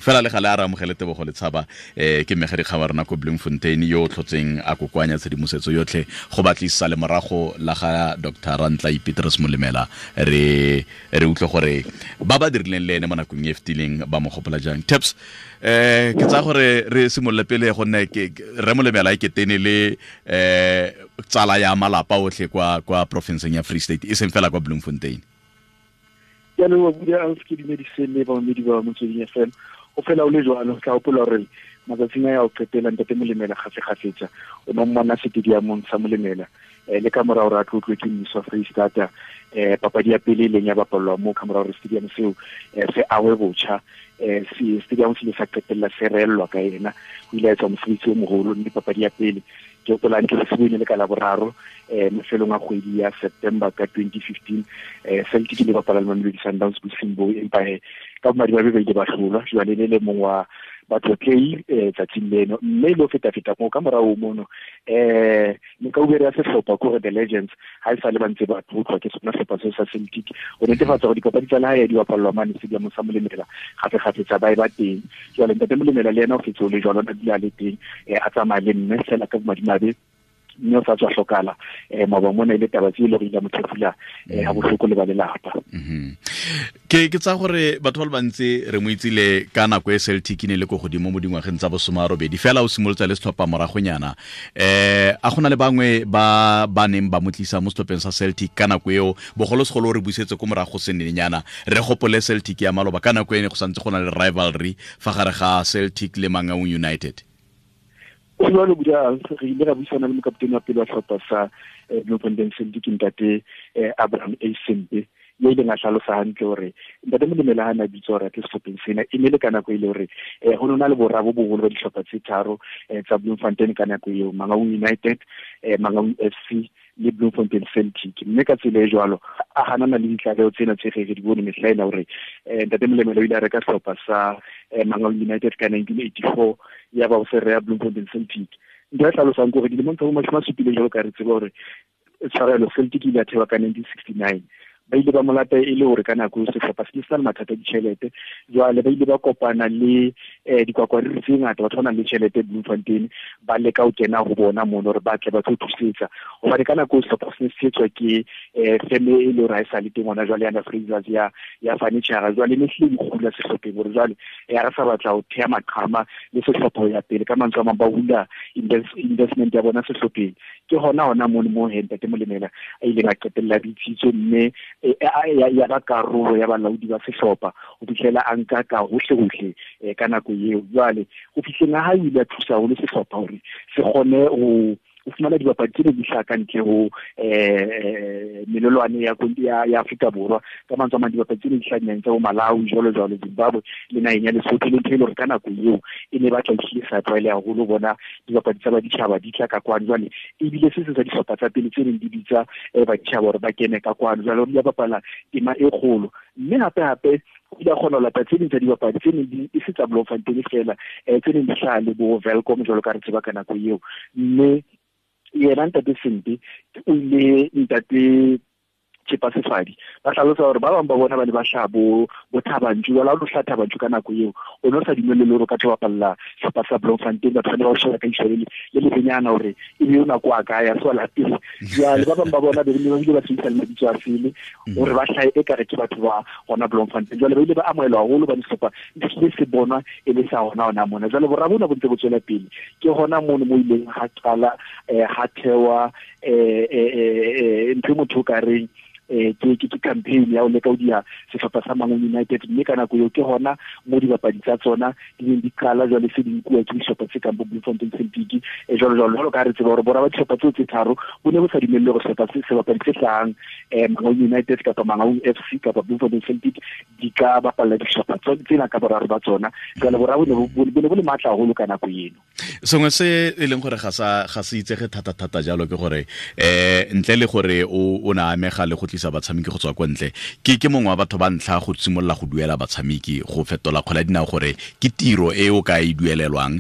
Fela le gale a re amogele Tebogo Letshaba, ke mmegadikgang wa rona ko Bloemfontein, yo o tlhotseng a kokoanya tshedimosetso yotlhe go batlisa le morago la ga Dr. Rantla Petrus Molemela. Re utlwe gore ba ba dirileng le ene mo nakong e fetileng ba mo gopola jang. Taps, ke tsaya gore re simolole pele, gonne ke re Molemela e ketene le tsala ya malapa otlhe kwa provinceng ya Free State, e seng fela kwa Bloemfontein. Ke a leboga, Buda Alf. Ke dumedise le bamamedi ba Motsweding FM. Go fela o le jwalo, tla gopola gore matsatsing a ya go qetela, ntate Molemela gafegafetsa o ne o mmona stadiumong sa Molemela, le ka mora gore a tlotlwe ke mmuso wa Freistata. Papadi ya pele e leng ya bapalelwa moo ka mora gore stadium seo se awe botjha. Stadium se ile sa qetella se reellwa ka ena. O ile a etsa mosebetsi o mogolo, mme papadi ya pele, ke gopola ke se bone le ka Laboraro, mafelong a kgwedi ya September ka 2015, Celtic le bapala le Mamelodi Sundowns bosing bo, empa he ka bomadimabe ba ile ba hlolwa. Jwale le mong wa batlotlei tsatsing leno, mme le ho feta-feta moo ka morao mono, mekaubere ya sehlopha, kore the legends, ha e sale ba ntse ba tlotlwa ke sona sehlopha seo sa Celtic, go netefatsa gore dipapadi tsa lehae di bapallwa mane stadium sa Molemela gape-gapetsa, ba e ba teng. Jwale ntate Molemela le ena o fetse o le jwalo, na dula a le teng, a tsamaya le mme fela ka bomadimabe mme o sa tswa hlokala maoba mona. E le taba tse e le gore ile mo thefula ha bohloko le ba lelapa. Ke tsa gore batho ba le bantsi re mo itsile ka nako e Celtic ne le ko godimo mo dingwageng tsa bosoma robedi, fela o simolotse le setlhopha moragonyana. A gona le bangwe ba ba neng ba mo tlisa mo setlhopheng sa Celtic ka nako eo, bogolosegolo re busetse ko morago senenyana, re gopole Celtic ya maloba, ka nako e ne go santse go na le rivalry fa gare ga Celtic le Mangaung United? O jalo, Buda. Re ile ra buisana le mokaptene wa pele wa sehlopha sa Bloemfontein Celtic, ntate Abraham A Sempe, yo ileng a hlalosa hantle hore ntate Molemela ha na bitsa hore a tle sehlopheng sena, e ne le ka nako e le hore ho nona le bora bo boholo ba dihlopha tse tharo tsa Bloemfontein ka nako eo, Mangaung United, Mangaung FC le Bloemfontein Celtic. Mme ka tsela e jwalo a hanana le ditlaleho tsena tse re di bone mehla ena hore ntate Molemela o ile a reka sehlopha sa Mangaung United ka 1984, ya ba o se reya Bloemfontein Celtic. Ntho ya hlalosang ke hore dilemong tsa bo 70, jwalo ka re tseba hore, tshwarelo, Celtic ile ya thewa ka 1969, ba ile ba molata e le hore ka nako eo sehlopha se ne se na le mathata a ditjhelete. Jwale ba ile ba kopana le dikwakwariri tse ngata, batho ba nang le tjhelete Bloemfontein, ba leka ho kena ho bona mono hore ba tle ba tlo thusetsa, hobane ka nako eo sehlopha se ne se etswa ke feme e le hore ha e sa le teng hona jwale, yana Frasers ya furniture. Jwale ne hlile di kgula sehlopheng hore jwale ya re sa batla ho theha maqhama le sehlopha ho ya pele. Ka mantswe a mang, ba hula investment ya bona sehlopheng. Ke hona mono mo he ntate Molemela a ileng a qetella bitsitswe, mme ya ba karolo ya balaodi ba sehlopha ho fihlela a nka ka hohle hohle ka nako eo. Jwale ho fihleng ha hae, o ile a thusa haholo sehlopha hore se kgone ho o fumana dibapadi tse ne di hlaha ka ntle ho melelwane ya Afrika Borwa. Ka mantswe a mang, dibapadi tse ne di hlaha dinaheng tsa bo Malawi, jwalo jwalo, Zimbabwe le naheng ya Lesotho, le ntho e le hore ka nako eo e ne batla ehlile sa tlwaeleha haholo bona dibapadi tsa baditjhaba di tla ka kwano. Jwale ebile se seng sa dihlopha tsa pele tse neng di bitsa baditjhaba hore ba kene ka kwano. Jwale o ile a bapala tema e kgolo, mme hape hape o ile a kgona ho lata tse ding tsa dibapadi tse neng di e se tsa Bloemfontein fela, tse neng di hlaha le bo Welkom, jwalo ka re tseba ka nako eo. Mme yena ntate Sempe o ile, ntate Chepa Sefadi, ba hlalosa hore ba bang ba bona ba ne ba hlaha bo Thabantšu. Jwale ha o lo hlaha Thabantšu ka nako eo, o ne o sa dumelle le hore o ka tlo bapalla sehlopha sa Bloemfontein. Batho ba ne ba o sheba ka ihlo le lebenyana hore e be o nako a kae, a se wa lapeng. Jwale ba bang ba bona be ba bile ba sebedisa le mabitso a sele hore ba hlahe e kare ke batho ba hona Bloemfontein. Jwale ba ile ba amohelwa haholo, ba sehlopha se se bonwa e le sa hona mona. Jwale bora bona bo ntse bo tswela pele. Ke hona mono mo ileng ha qala ha thewa ntho e motho o ka reng ke campaign ya ho leka ho diha sehlopha sa Mangaung United. Mme ka nako eo ke hona mo dibapadi tsa tsona di neng di qala jwale se di nkuwa ke dihlopha tse kang bo Bloemfontein Celtic, jwalo jwalo, jwalo ka ha re tseba hore bora ba dihlopha tseo tse tharo bo ne bo sa dumelle hore sehlopha se sebapadi se hlahang Mangaung United kapa Mangaung FC kapa Bloemfontein Celtic di ka bapalla dihlopha tsena ka boraro ba tsona. Jwale bora bo ne bo le matla haholo ka nako eno. Sengwe se e leng gore ga se itsege thata-thata jalo ke gore ntle le gore o na amega le go tlisa batshameki go tswa kwa ntle, ke mongwe wa batho ba ntlha go simolola go duela batshameki, go fetola kgwele ya dinao gore ke tiro e o ka e duelelwang,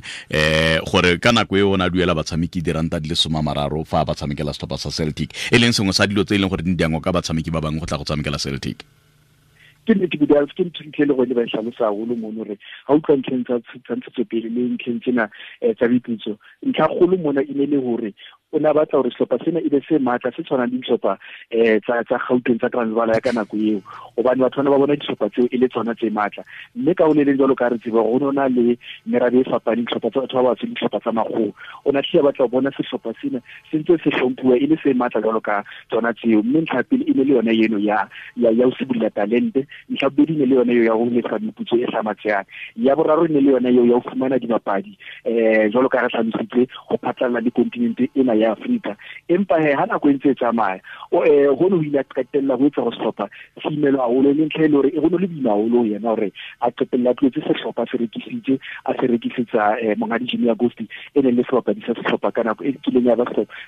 gore ka nako e o na duela batshameki R30 fa ba tshamekela setlhopha sa Celtic, e leng sengwe sa dilo tse e leng gore di diangwa ka batshameki ba bangwe go tla go tshamekela Celtic. Ke nnete Budals, ke ntho ntle le gone ba e hlalosa haholo mono hore ha utlwa ntlheng tsa ntshetsopele le ntlheng tsena tsa meputso, ntlha kgolo mona e ne le hore o ne a batla hore sehlopha sena e be se matla, se tshwanang le dihlopha tsa Gauteng, tsa Transvaal ya ka nako eo, hobane batho bana ba bona dihlopha tseo e le tsona tse matla. Mme ka ho le leng jwalo ka re tseba hore ho na le merabe e fapaneng, dihlopha tsa batho ba batsho le dihlopha tsa makgowa. O ne a hlile a batla ho bona sehlopha sena se ntse se hlomphuwa e le se matla jwalo ka tsona tseo. Mme ntlha ya pele e ne le yona eno ya ho sibolla talente, ntlha bobedi e ne le yona eo ya ho lefa meputso e hlamatsehang, ya boraro e ne le yona eo ya ho fumana dibapadi jwalo ka re hlalositse ho phatlalla le kontinente ena ya Afrika. Empa he ha nako e ntse e tsamaya, hono ho ile a qetella ho etsa hore sehlopha se imelwe haholo, e leng ntlha e le hore e ho ne le boima haholo ho yena hore a qetella a tlohetse sehlopha se rekisitse, a se rekisetsa monghadi Jimmy Agosti, e neng le sebapadi sa sehlopha ka nako e kileng ya ba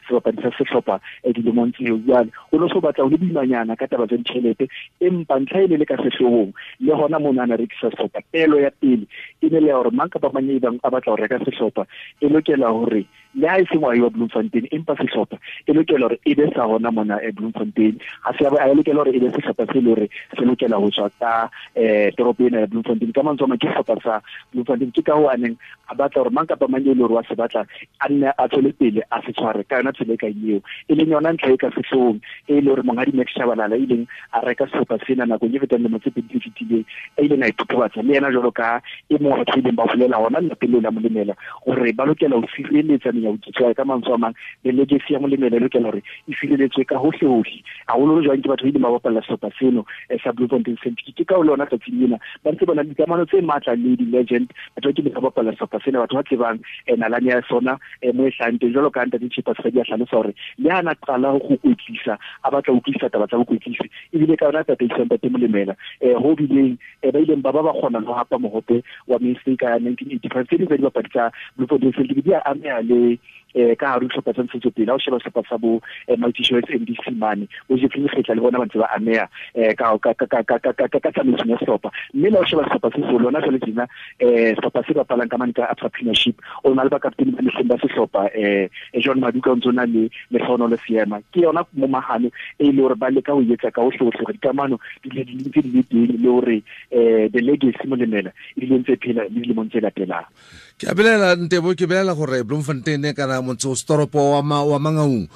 sebapadi sa sehlopha dilemong tseo. Jwale o no so batla ho le boimanyana ka taba tsa ditjhelete, empa ntlha e ne le ka sehloohong le hona mona a na rekisa sehlopha. Pelo ya pele e ne le ya hore mang kapa mang e bang a batla ho reka sehlopha e lokela hore le ha e se ngwahi wa Bloemfontein, empa sehlopha e lokela hore e be sa hona mona Bloemfontein. Ha se a lokela hore e be sehlopha se le hore se lokela ho tswa ka toropo ena ya Bloemfontein. Ka mantswe a mang, ke sehlopha sa Bloemfontein. Ke ka hoo a neng a batla hore mang kapa mang e le hore wa se batla a nne a tswele pele a se tshware ka yona tsela e kang eo, e leng yona ntlha e ka sehloohong e le hore monghadi Max Shabalala e ileng a reka sehlopha sena nakong e fetang lemo tse pedi tse fetileng, a ileng a ithothobatsa le yena jwalo ka e mong wa batho ba ileng ba bolela hona lelapeng leo la Molemela hore ba lokela ho sireletsa menyabuketso ya ka mantswe a mang, le legacy ya Molemela e lokela hore e sireletswe ka hohle hohle, haholoholo jwang ke batho ba ileng ba bapalla sehlopha seno sa Bloemfontein Celtic. Ke ka ho lona tsatsing lena ba ntse ba na le dikamano tse matla le di-legend, batho ba kileng ba bapalla sehlopha sena, batho ba tsebang nalane ya sona mo e hlahang teng. Jwalo ka ntate Chipas Kgwedi a hlalosa hore le ha na qala ho kwetlisa, a batla ho utlwisisa taba tsa bokwetlisi, ebile ka yona tataiso ya ntate Molemela ho bileng ba ileng ba ba ba kgona le ho hapa mohope wa Mainstay ka 1985. Tse ding tsa dibapadi tsa Bloemfontein Celtic di a ameha le ka hare ho dihlopha tsa ntshetsopele. Ha o sheba sehlopha sa bo Mighty Choice MDC mane, bo Jeffrey Lekgetla le bona ba ntse ba ameha ka tsamaisong ya sehlopha. Mme le ha o sheba sehlopha se seholo hona jwale tjena, sehlopha se bapalang ka mane ka Absa Premiership, o na le bakapteni ba mehleng ba sehlopha John Maduka o ntse o na le Lehlohonolo Seema. Ke yona momahano e le hore ba leka ho etsa ka hohle hohle hore dikamano di le di ntse di le teng, le hore the legacy Molemela e dile ntse phela le dilemong tse latelang. Ke a belela Ntebo, ke belela gore Bloemfontein kana motse o setoropo wa Mangaung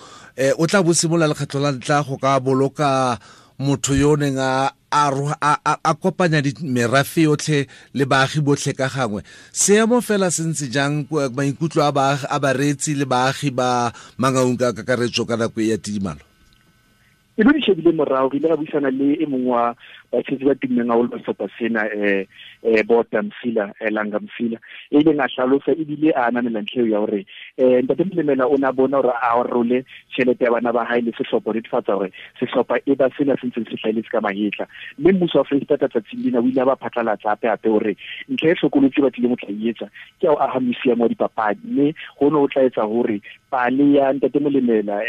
o tla bo simolola lekgetlo la ntlha go ka boloka motho yo o neng a kopanya merafe yotlhe le baagi botlhe ka gangwe. Seemo fela se ntse jang, maikutlo a bareetsi le baagi ba Mangaung ka kakaretso ka nako e ya tidimalo? E be di shebile morao, re ile ra buisana le e mongwe wa batshetsi ba tummeng haholo ba sehlopha sena, Bota Msila, Langa Msila, e ileng a hlalosa ebile a ananela ntlha eo ya hore ntate Molemela o ne a bona hore a role tjhelete ya bana ba hae le sehlopha, ho netefatsa hore sehlopha e ba sena se ntseng se hlahelletse ka mahetla. Mme mmuso wa Freistata tsatsing lena o ile a ba phatlalatsa hape-hape hore ntlha e hlokolotsi ba tlileng ho tla e etsa ke ya ho aha museum wa dipapadi, mme hono ho tla etsa hore pale ya ntate Molemela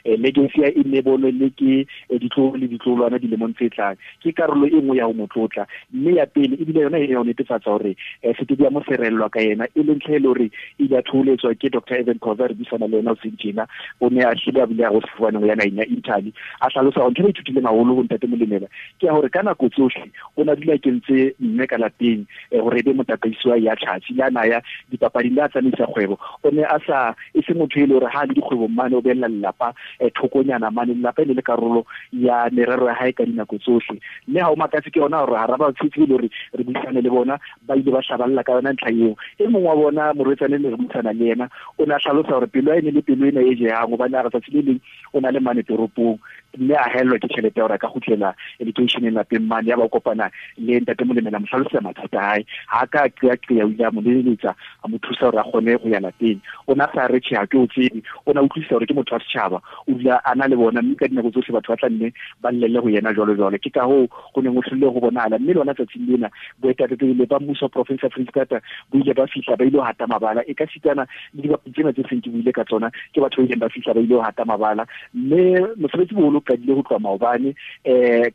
legacy ya e ne bonwe le ke ditloholo le ditloholwana dilemong tse tlang. Ke karolo e nngwe ya ho mo tlotla. Mme ya pele ebile yona e ya ho netefatsa hore stadium se rellwa ka yena, e leng ntlha e le hore e ile ya thoholetswa ke Doctor Evan Khoza, re buisana le yena hoseng tjena. O ne a hlile a bile a go sefofaneng ho ya naheng ya Italy. A hlalosa hore ntho e ba ithutileng haholo ho ntate Molemela ke ya hore ka nako tsohle o ne a dula a kentse mme ka lapeng hore e be motataisi wa ya tjhatsi, le a na ya dipapading, le a tsamaisa kgwebo. O ne a sa e se motho e le hore ha le dikgwebong mane o behella lelapa thokonyana mane, lelapa e ne le karolo ya merero ya hae ka dinako tsohle. Mme ha o makatse ke yona hore hara batshetsi e le hore re buisane le bona ba ile ba hlaballa ka yona ntlha eo. E mong wa bona morwetsane le re buisana le yena o ne a hlalosa hore pelo ya e ne le pelo ena e jehang, hobane a re tsatsi le leng o na le mane toropong mme a haellwa ke tjhelete ya hore a ka kgutlela lekeisheneng lapeng mane, ya ba o kopana le ntate Molemela, mo hlalosetsa mathata a hae. Ha a ka a qeaqea, o ile a mo leletsa, a mo thusa hore a kgone ho ya lapeng. O ne a sa re tjhe, ha ke o tsebe, o ne a utlwisisa hore ke motho wa setjhaba, o dula a na le bona, mme ka dinako tsohle batho ba tla nne ba llelle ho yena jwalo jwalo. Ke ka hoo ho neng ho hlile ho bonahala. Mme lona tsatsing lena boetapele ba mmuso wa province ya Freistata bo ile ba fihla ba ile ho hata mabala, e ka sitana le dibapadi tsena tse seng ke buile ka tsona, ke batho ba ileng ba fihla ba ile ho hata mabala. Mme mosebetsi boholo o qadile ho tloha maobane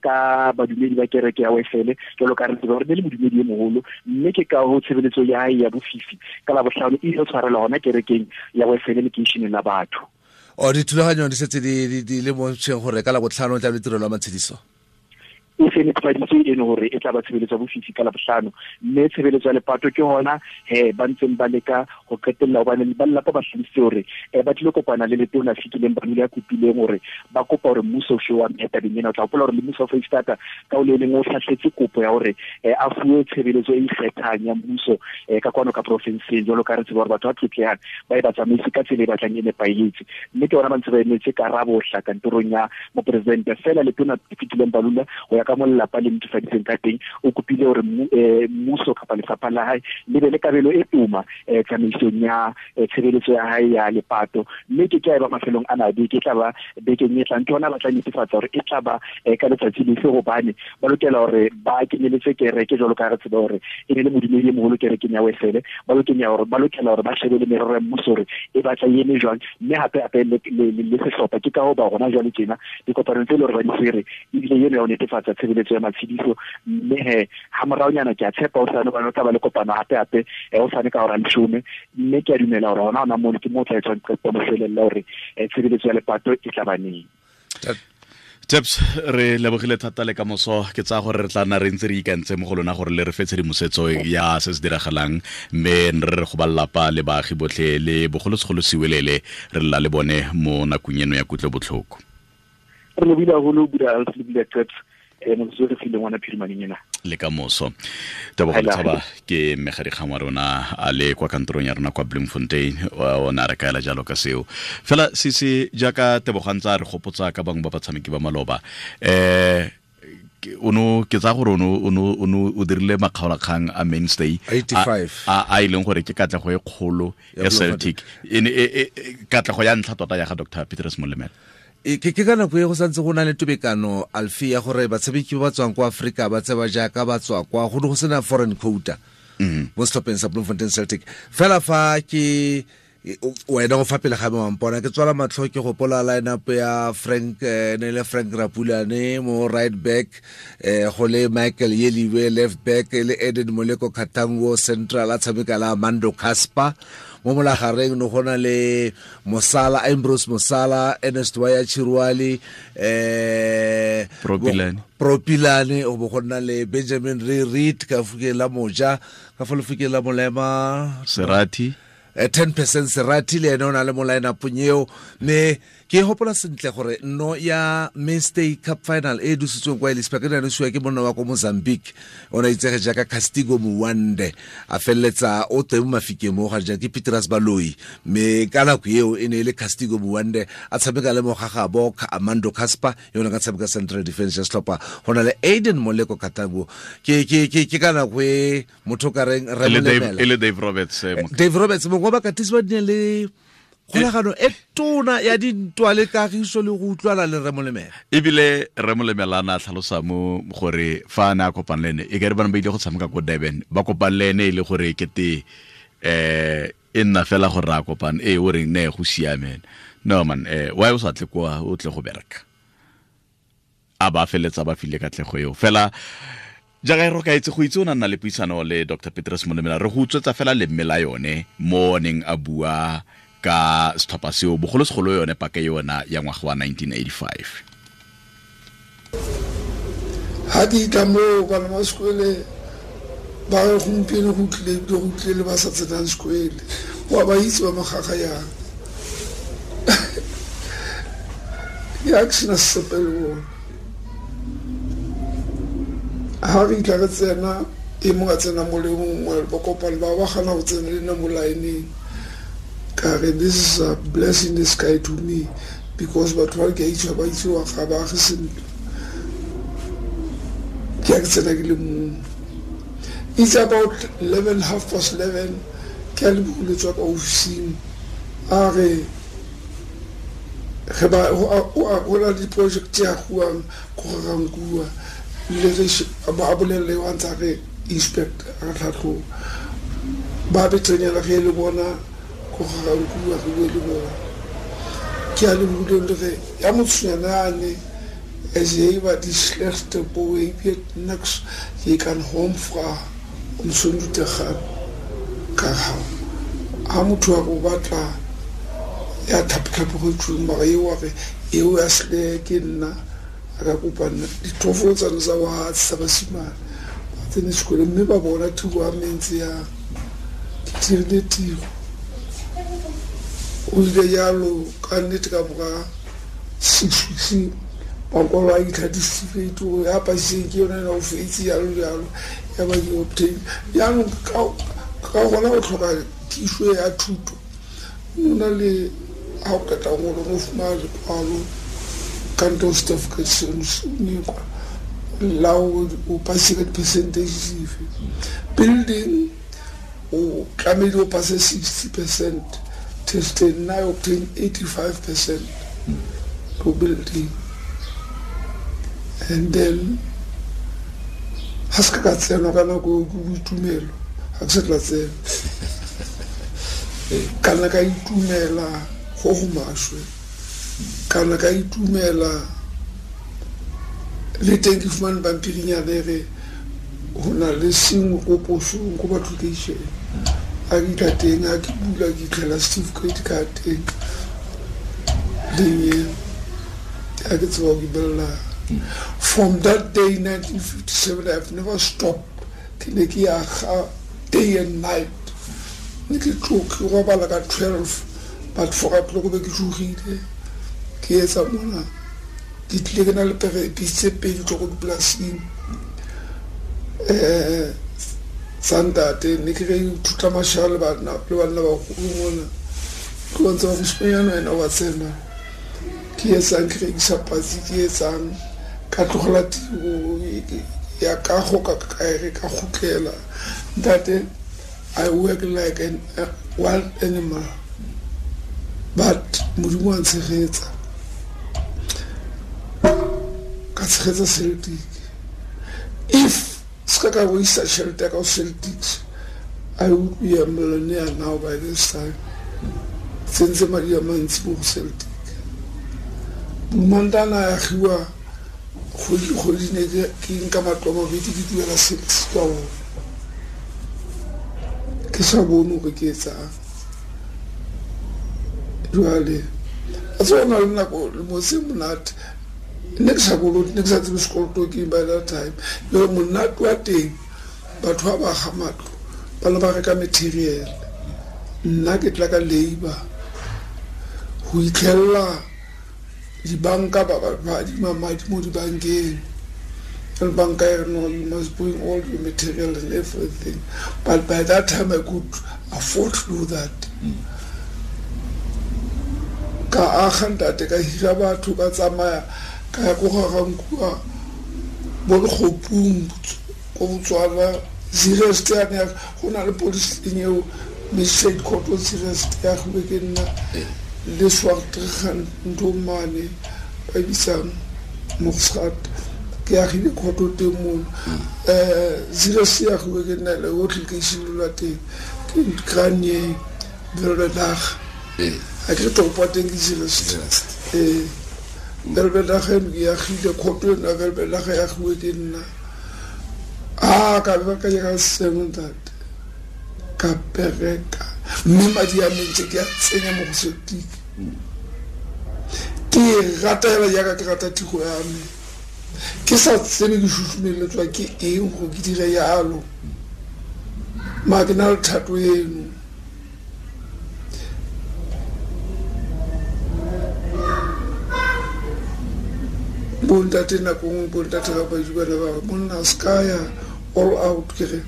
ka badumedi ba kereke ya Wesele, jwalo ka re tseba hore ne le modumedi e moholo, mme ke ka ho tshebeletso ya hae ya bofifi ka Labohlano e ile tshwarelwa hona kerekeng ya Wesele lekeisheneng la batho. O dithulaganyo di setse di le mo ntsheng gore ka Labohlano tla be tirelo ya matshediso? E se netefaditswe eno gore e tla ba tshebeletso ya bofifi ka Labohlano, mme tshebeletso ya lepato ke hona he ba ntseng ba leka go qetella, hobane ba lelapa ba hlalositse hore ba tlile kopana le letona Fikileng Balula ya kopileng hore ba kopa hore mmuso o fe wa mme tabeng ena. O tla hopola hore le mmuso wa Foreisetata ka o le leng o hlahletse kopo ya hore a fuwe tshebeletso e ikgethang ya mmuso ka kwano ka porofenseng, jwalo ka re tseba hore batho ba tlotlehang ba e ba tsamaise ka tsela e batlang e nepahetse. Mme ke bona ba ntse ba emetse karabo hla kantorong ya moporesidente. Fela letona Fikileng Balula, go ya ka mo lelapa le netefaditseng ka teng, o kopile hore mmuso kapa lefapha la hae le be le kabelo e toma tsamaisong ya tshebeletso ya hae ya lepato. Mme ke tla e ba mafelong a na beke, e tla ba bekeng e tlang, ke hona ba tla netefatsa hore e tla ba ka letsatsi lefe, hobane ba lokela hore ba kenyeletse kereke, jwalo ka re tseba hore e ne le modumedi e moholo kerekeng ya Wesele. Ba lokela hore ba shebe le merero ya mmuso hore e batla e eme jwang, mme hape hape le sehlopha. Ke ka ho ba rona jwale tjena dikopanong tse le hore ba di tshwere, ebile eno ya ho netefatsa tshebeletso ya matshediso. Mme he ha moraonyana ke a tshepa hosane, hobane o tla ba le kopano hape hape hosane ka hora 10, mme ke a dumela hore hona mono ke mo tla etswang qeto ya moshwelella hore tshebeletso ya lepato e tla ba neng. Taps, re lebogile thata le kamoso. Ke tsaya gore re tla nna re ntse re ikantse mo go lona gore le re fe tshedimosetso ya se se diragalang, mme re re go ba lelapa le baagi botlhe le bogolosegolo Siwelele re lla le bone mo nakong eno ya kutlobotlhoko. Re lebile haholo, Buda Alf, le Buda Taps, motsotso re fileng ona phirimaneng ena. Le kamoso. Tebogo Letshaba ke mmegadikgang wa rona a le kwa kantorong ya rona kwa Bloemfontein, o ne a re kaela jalo ka seo. Fela se jaaka Tebogo a ntse a re gopotsa ka bangwe ba batshameki ba maloba, ono ke tsaya gore ono o dirile makgaolakgang a mainstay 85 a e leng gore ke katlego e kgolo ya Celtic, e katlego ya ntlha tota ya ga Dr. Petrus Molemela. Ke ka nako e go santse go na le tobekano Alfi ya gore batshameki ba ba tswang kwa Afrika ba tseba jaaka ba tswa kwa, go ne go sena foreign quota mo setlhopheng sa Bloemfontein Celtic. Fela fa ke wena o fa pele ga me wa mpona, ke tswala matlho ke gopola line-up ya Frank, ne le Frank Rapulane mo right back, go le Michael Yeliwe left back, le Eden Moleko Katango central a tshameka la Mando Casper. Mo molagareng no go na le Mosala, Ambrose Mosala, Ernest Waya Chirwali, Propilane, o bo go nna le Benjamin Reed ka fukeng la moja, ka fa lefokeng la molema Serati, 10% Serati le ene o na le mo line-upong eo. Mme ke hopola sentle gore no ya Mainstay Cup final e dusitsweng kwa Ellis Park e ne nosiwa ke monna wa ko Mozambique, o ne a itsege jaaka Castigo Muwande, a feleletsa o teng mo mafikeng mo ga jang ke Petrus Baloi, mme ka nako eo e ne e le Castigo Muwande a tshameka le mogagabo Amando Casper, yo ne ka tshameka central defense ya setlhopha. Go na le Aiden Moleko Katango, ke ka nako e motho ka reng re molemela. E le Dave Roberts, Dave Roberts mongwe wa bakatisi ba di le kgolagano e tona ya dintwa le kagiso le go utlwana le Rre Molemela. Ebile Rre Molemela a ne a tlhalosa mo gore fa a ne a kopane le ene, e ka re bana ba ile go tshameka ko Durban, ba kopane le ene e le gore kete e nna fela gore a kopane, o reng ne go siame. No man, why o sa tle kwa o tle go bereka? A ba feletsa ba file katlego eo. Fela jaaka e re ka itse go itse o na nna le puisano le Dr. Petrus Molemela, re go utswetsa fela lemme la yone mo neng a bua ka setlhopha seo, bogolosegolo yone paka yona ya ngwaga wa 1985. Ha ke tla mo bana ba sekole ba re gompieno go tlile ebile go tlile le ba sa tsenang sekole, wa ba itse ba magaga yang. Ya ke sena sepe le bona. Ha re tla re tsena, e mongwe a tsena mo le mongwe, ba kopane ba ba gana go tsena le nna mo line-eng. Ka re, this is a blessing in the sky to me, because batho ba ke a itse ba itse wa ga ba age sentle. Ke a ke tsena ke le mong. It's about eleven, half past eleven, ke a le bogolo tswa ka ofising. A re, ge ba, go a, o a, go na le di-project tse agiwang ko ga Rankuwa. Le ge a ba a bolelele wa ntse a re inspect, a re tlhatlhoba. Ba betsenyana ge le bona ko ga Rankuwa, re bue le bona. Ke a le bule le ge, ya motshonyana ane, as jy wat die slegste boy, jy weet niks, jy kan hom vra om soontoe te gaan. Ka ga, ha motho a go batla ya tlhapotlhapo go tsweng, mara eo wa re, eo ya sle ke nna, A ka kopa nna ditlhofolo tsane tsa bogatse tsa basimane ba tsene sekolo, mme ba bona tiro ya mentse yang ke dirile tiro. O ile jalo ka nnete ka mora 6 weeks makwalo a itlha dicertificate gore ya pasiseng ke yone ena o fetse, jalo jalo, ya ba ke obtain. Jaanong ka gona go tlhoka thuso ya thuto o na le ga o qeta ngolo o fumana lekwalo kanto certificate seno se kwa la o passe ka di-percentage dife. Building o tlamehile o passe 60% testeng, nna I obtain 85% to building. And then ga se ka ka tsenwa ka nako eo ke boitumelo, ga ke sa tla tsena kana ka itumela go go maswe, kana ka itumela le teng. Ke fumane pampirinyana e re go na le sengwe ko posong ko application a ke itlha teng, a ke bula ke itlhela certificate ka teng leng a ke tseba ke belela. From that day, 1957, I have never stopped. Ke ne ke aga day and night, ne ke tlo ke robala ka 12, but 4 o'clock be ke tsogile ke etsa mona. Ke tlile ke na le pere tse pedi tlo ko dipolasing tsa ntate, ne ke re ithuta mashala le banna bagolo mona, ke bontse ba mosimanyana wena wa tsena ke etsang, ke rekisa patsi, ke etsang. Ka tlogela tiro ya kago ka kaere ka gotlela. Ntate, I work like an a wild animal, but Modimo wa ntshegetsa, ka tshegetsa Celtic. If se ka ka boisa tšhelete ya ka go Celtics, I would be a millionaire now by this time. Tsentse madi a mantsi mo go Celtic. Bomantana a agiwa kgwedi le kgwedi, ne ke nka matlo a mabedi ke duela Celtics ka ona, ke sa bone gore ke etsang. Jwale a tse na le nako lemo se monate, ne ke sa kolote, ne ke sa tsebe sekoloto ke by that time. Le monate wa teng, batho ba ba aga matlo ba ne ba reka material, nna ke tla ka labor go itlhelela dibanka ba ba adima madi mo dibankeng, and banka e re, "No, you must bring all your material and everything." But by that time I could afford to do that. Ka aga ntate, ka hira batho, ka tsamaya ka ya ko Garankuwa, bo Lekgopung ko Botswana, Zeerust yane go na le police station eo, magistrate court o Zeerust ya agiwe ke nna le Swartregan, ntho mane ba e bitsang Mogsgat, ke agile court teng mono. Zeerust e agiwe ke nna le otlhe, ke simolola teng ke Granier Welbedag. A ke re toropo ya teng ke Zeerust. Zeerust. Ee, Welbedag eno ke agile court eno ya Welbedag, e agiwe ke nna. A ka be ka ka seno ntate, ka bereka mme madi a mentse ke a tsenya mo go Celtic. Ke e rata hela jaaka ke rata tiro ya me, ke sa tsebe ke susumeletswa ke eng gore ke dire yalo, ma ke na le thato eno. Bontate nako nngwe, bontate ga baji bana ba re, "Monna, se ka ya all out." Ke re,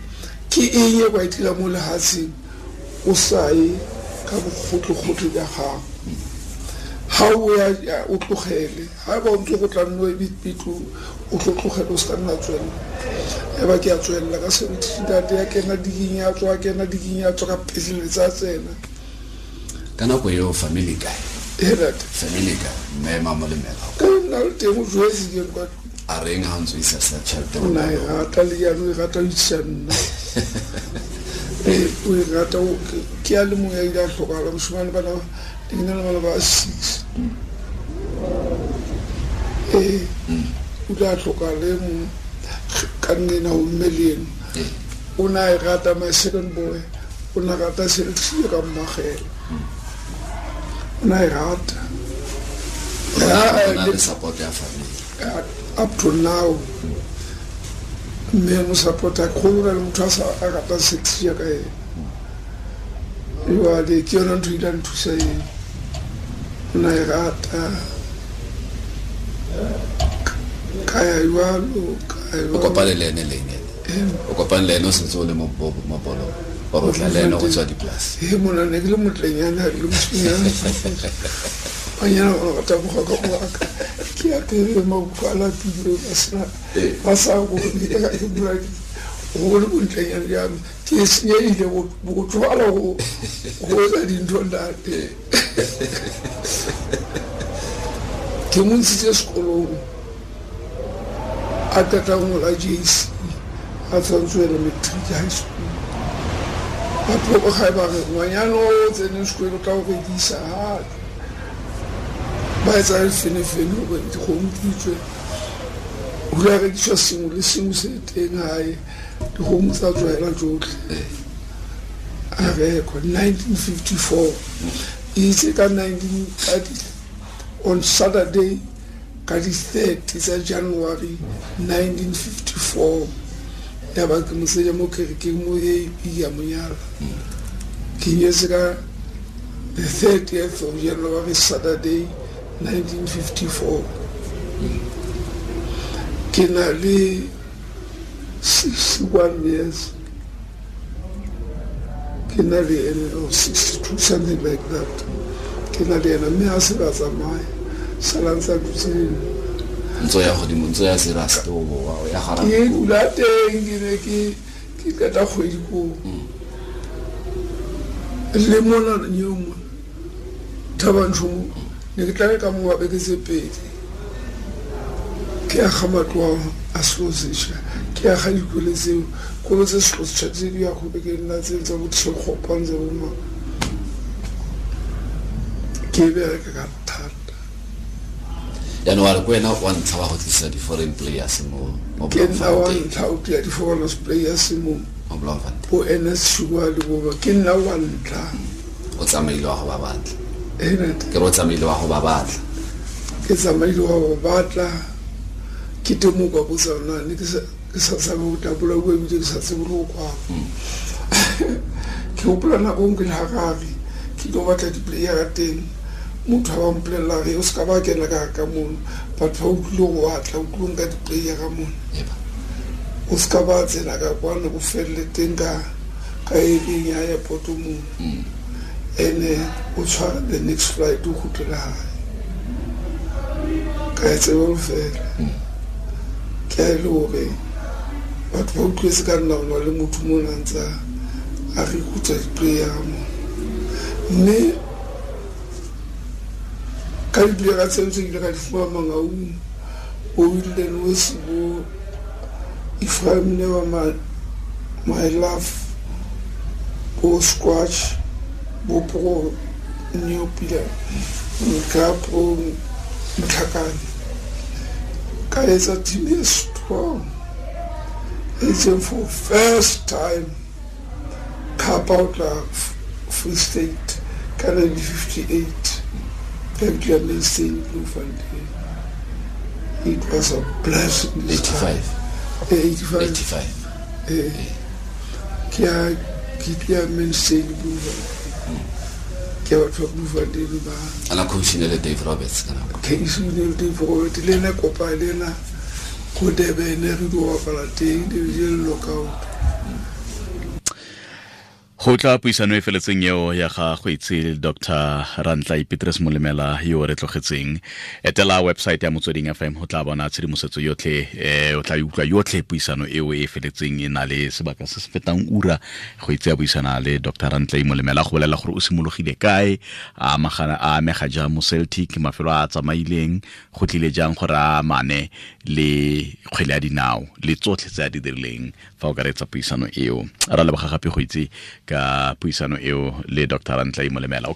ke eng e kwa e dira mo lehatsheng o sa ye ka bogotlhe-gotlhe ja gago? Ga o ya o tlogele, ga ba o ntse go tla nno ebitlo o tlo tlogele, o se ka nna tswelela. Ya ba ke a tswelela ka 17, ya kena diking, ya tswa, kena diking, ya tswa, ka peseletsa tsena. Ka nako eo family kae? E ntate. Family kae, mme Mamolemela? Ka nna le teng, o jwetse ke kwa. A reng ha o ntse o isa sa tšhelete? O na e rata le jaanong, e rata o itsa nna. Ee, o e rata ke a le mongwe ya ile a tlhokala moshimane, bana ke na le bana ba six. Ee, o ile a tlhokala e mongwe ka nnena go mme le eno. O ne a e rata. My second boy o ne a rata selexie ka mmagela, o ne a e rata. O na le support ya family. Up to now mme mo support-a kgolo na le motho a sa a rata sex jaaka ene. Jwale ke yona ntho e ile ya nthusa eo, o na e rata ka ya jwalo ka ya O jwalo. Kopane le ene leng ene? O kopane le ene o sentse o le mo mo bolong or o tla le ene go tswa dipolase? He mona ne ke le motlenyana le mosimanyana banyana ba rata boga ka boaka ke apere mabuka a lapile ba sena ba sa bone ka ke bua go le bontlenyana jame ke senyehile go tlogala go etsa dintho ntate. Ke mo ntshitse sekolong a qeta ho ngola JC a tshwanetse ho ela matric high school. Batho ba gae ba re ngwanyana o tseneng sekolo o tla o rekisa ha ba etsa lefenefene hore dikgomo di tswe ho la rekiswa sengwe le sengwe se teng hae dikgomo tsa tswela tsotlhe a rekwa 1954 itse ka 19 on Saturday ka di-30 tsa January 1954 ya ba ke moseja mo kerekeng mo AP ya monyala ke nyetse ka the 30th of January Saturday 1954 ke na le 61 years ke na le ene or 62 something like that ke na le ena mme a se ba tsamaya sala ntse a dutse le nna. Ntso ya godimo ntso ya serious o boa o ya gara ke dula teng ke ne ke ke qeta kgwedi koo le mona nyeo mona Thabanchu mo ne ke tla ka mo beke tse pedi ke aga matlo a selo sešwa ke aga dikolo tseo kolo tse selo sešwa tse di ya go beke nna tse tsa bo Tshekgopang tsa bo mang ke bereka ka thata. Jaanong wa re ke wena wa ntlha wa go tlisa di-foreign players mo Ke nna wa Bloemfontein. ntlha o tlisa di-foreign players mo Mo Bloemfontein. Bo Ernest Shua le bo ba ke nna wa ntlha. O tsamaile wa go ba batla. Eh, ntate. Ke re o tsamaile wa go ba batla. Ke tsamaile wa go batla ke teng mo kwa botsa na ne ke sa ke sa tshabe ho tabola bua ebile ke sa tsebe le ho kwala. Ke hopola nako e nngwe ke le Harare ke tlo batla di-player teng motho a ba mpolella re o se ka ba kena ka ka mono batho ba utlwile go batla o tlilo nka di-player ka mono o se ka ba tsena ka kwano o felle teng ka ka ering ya airport mono ene o tshware the next flight o kgutlele hae ka e tsebe ho fela ke a e le hore batho ba utlwetse ka nna ho na le motho mona a ntsa a recruit-a di-player mono mme ka di-player tseo tse ke ile ka di fumana Mangaung bo Wilden Wesi bo Ephraim Newa my love bo Squatch bo Pro Neopila nka Pro Motlhakane ka etsa team e strong e itseng for first time cup out la Free State ka 1958 Ka Mainstein Bloemfontein. It was a blessing. 85. 85. 85. Ke a ke tla Mainstein Bloemfontein. Ke batho ba Bloemfontein ba. Ana coach ne le Dave Roberts ka nako. Coach ne le Dave Roberts le ena kopa le ena ko Durban re di bapala teng di le lockout. Go tla puisano e feletseng eo ya ga go itse Dr. Rantlai Petrus Molemela yo re tlogetseng. Etela website ya Motsweding FM go tla bona tshedimosetso yotlhe o tla utlwa yotlhe puisano eo e feletseng e na le sebaka se se fetang ura go itse ya buisana le Dr. Rantlai Molemela go bolela gore o simologile kae a amagana a amega jang mo Celtic mafelo a tsamaileng go tlile jang gore a amane le kgwele ya dinao le tsotlhe tse a di dirileng fa o ka reetsa puisano eo. Ra leboga gape go itse ka puisano eo le Dr. Rantlai Molemela.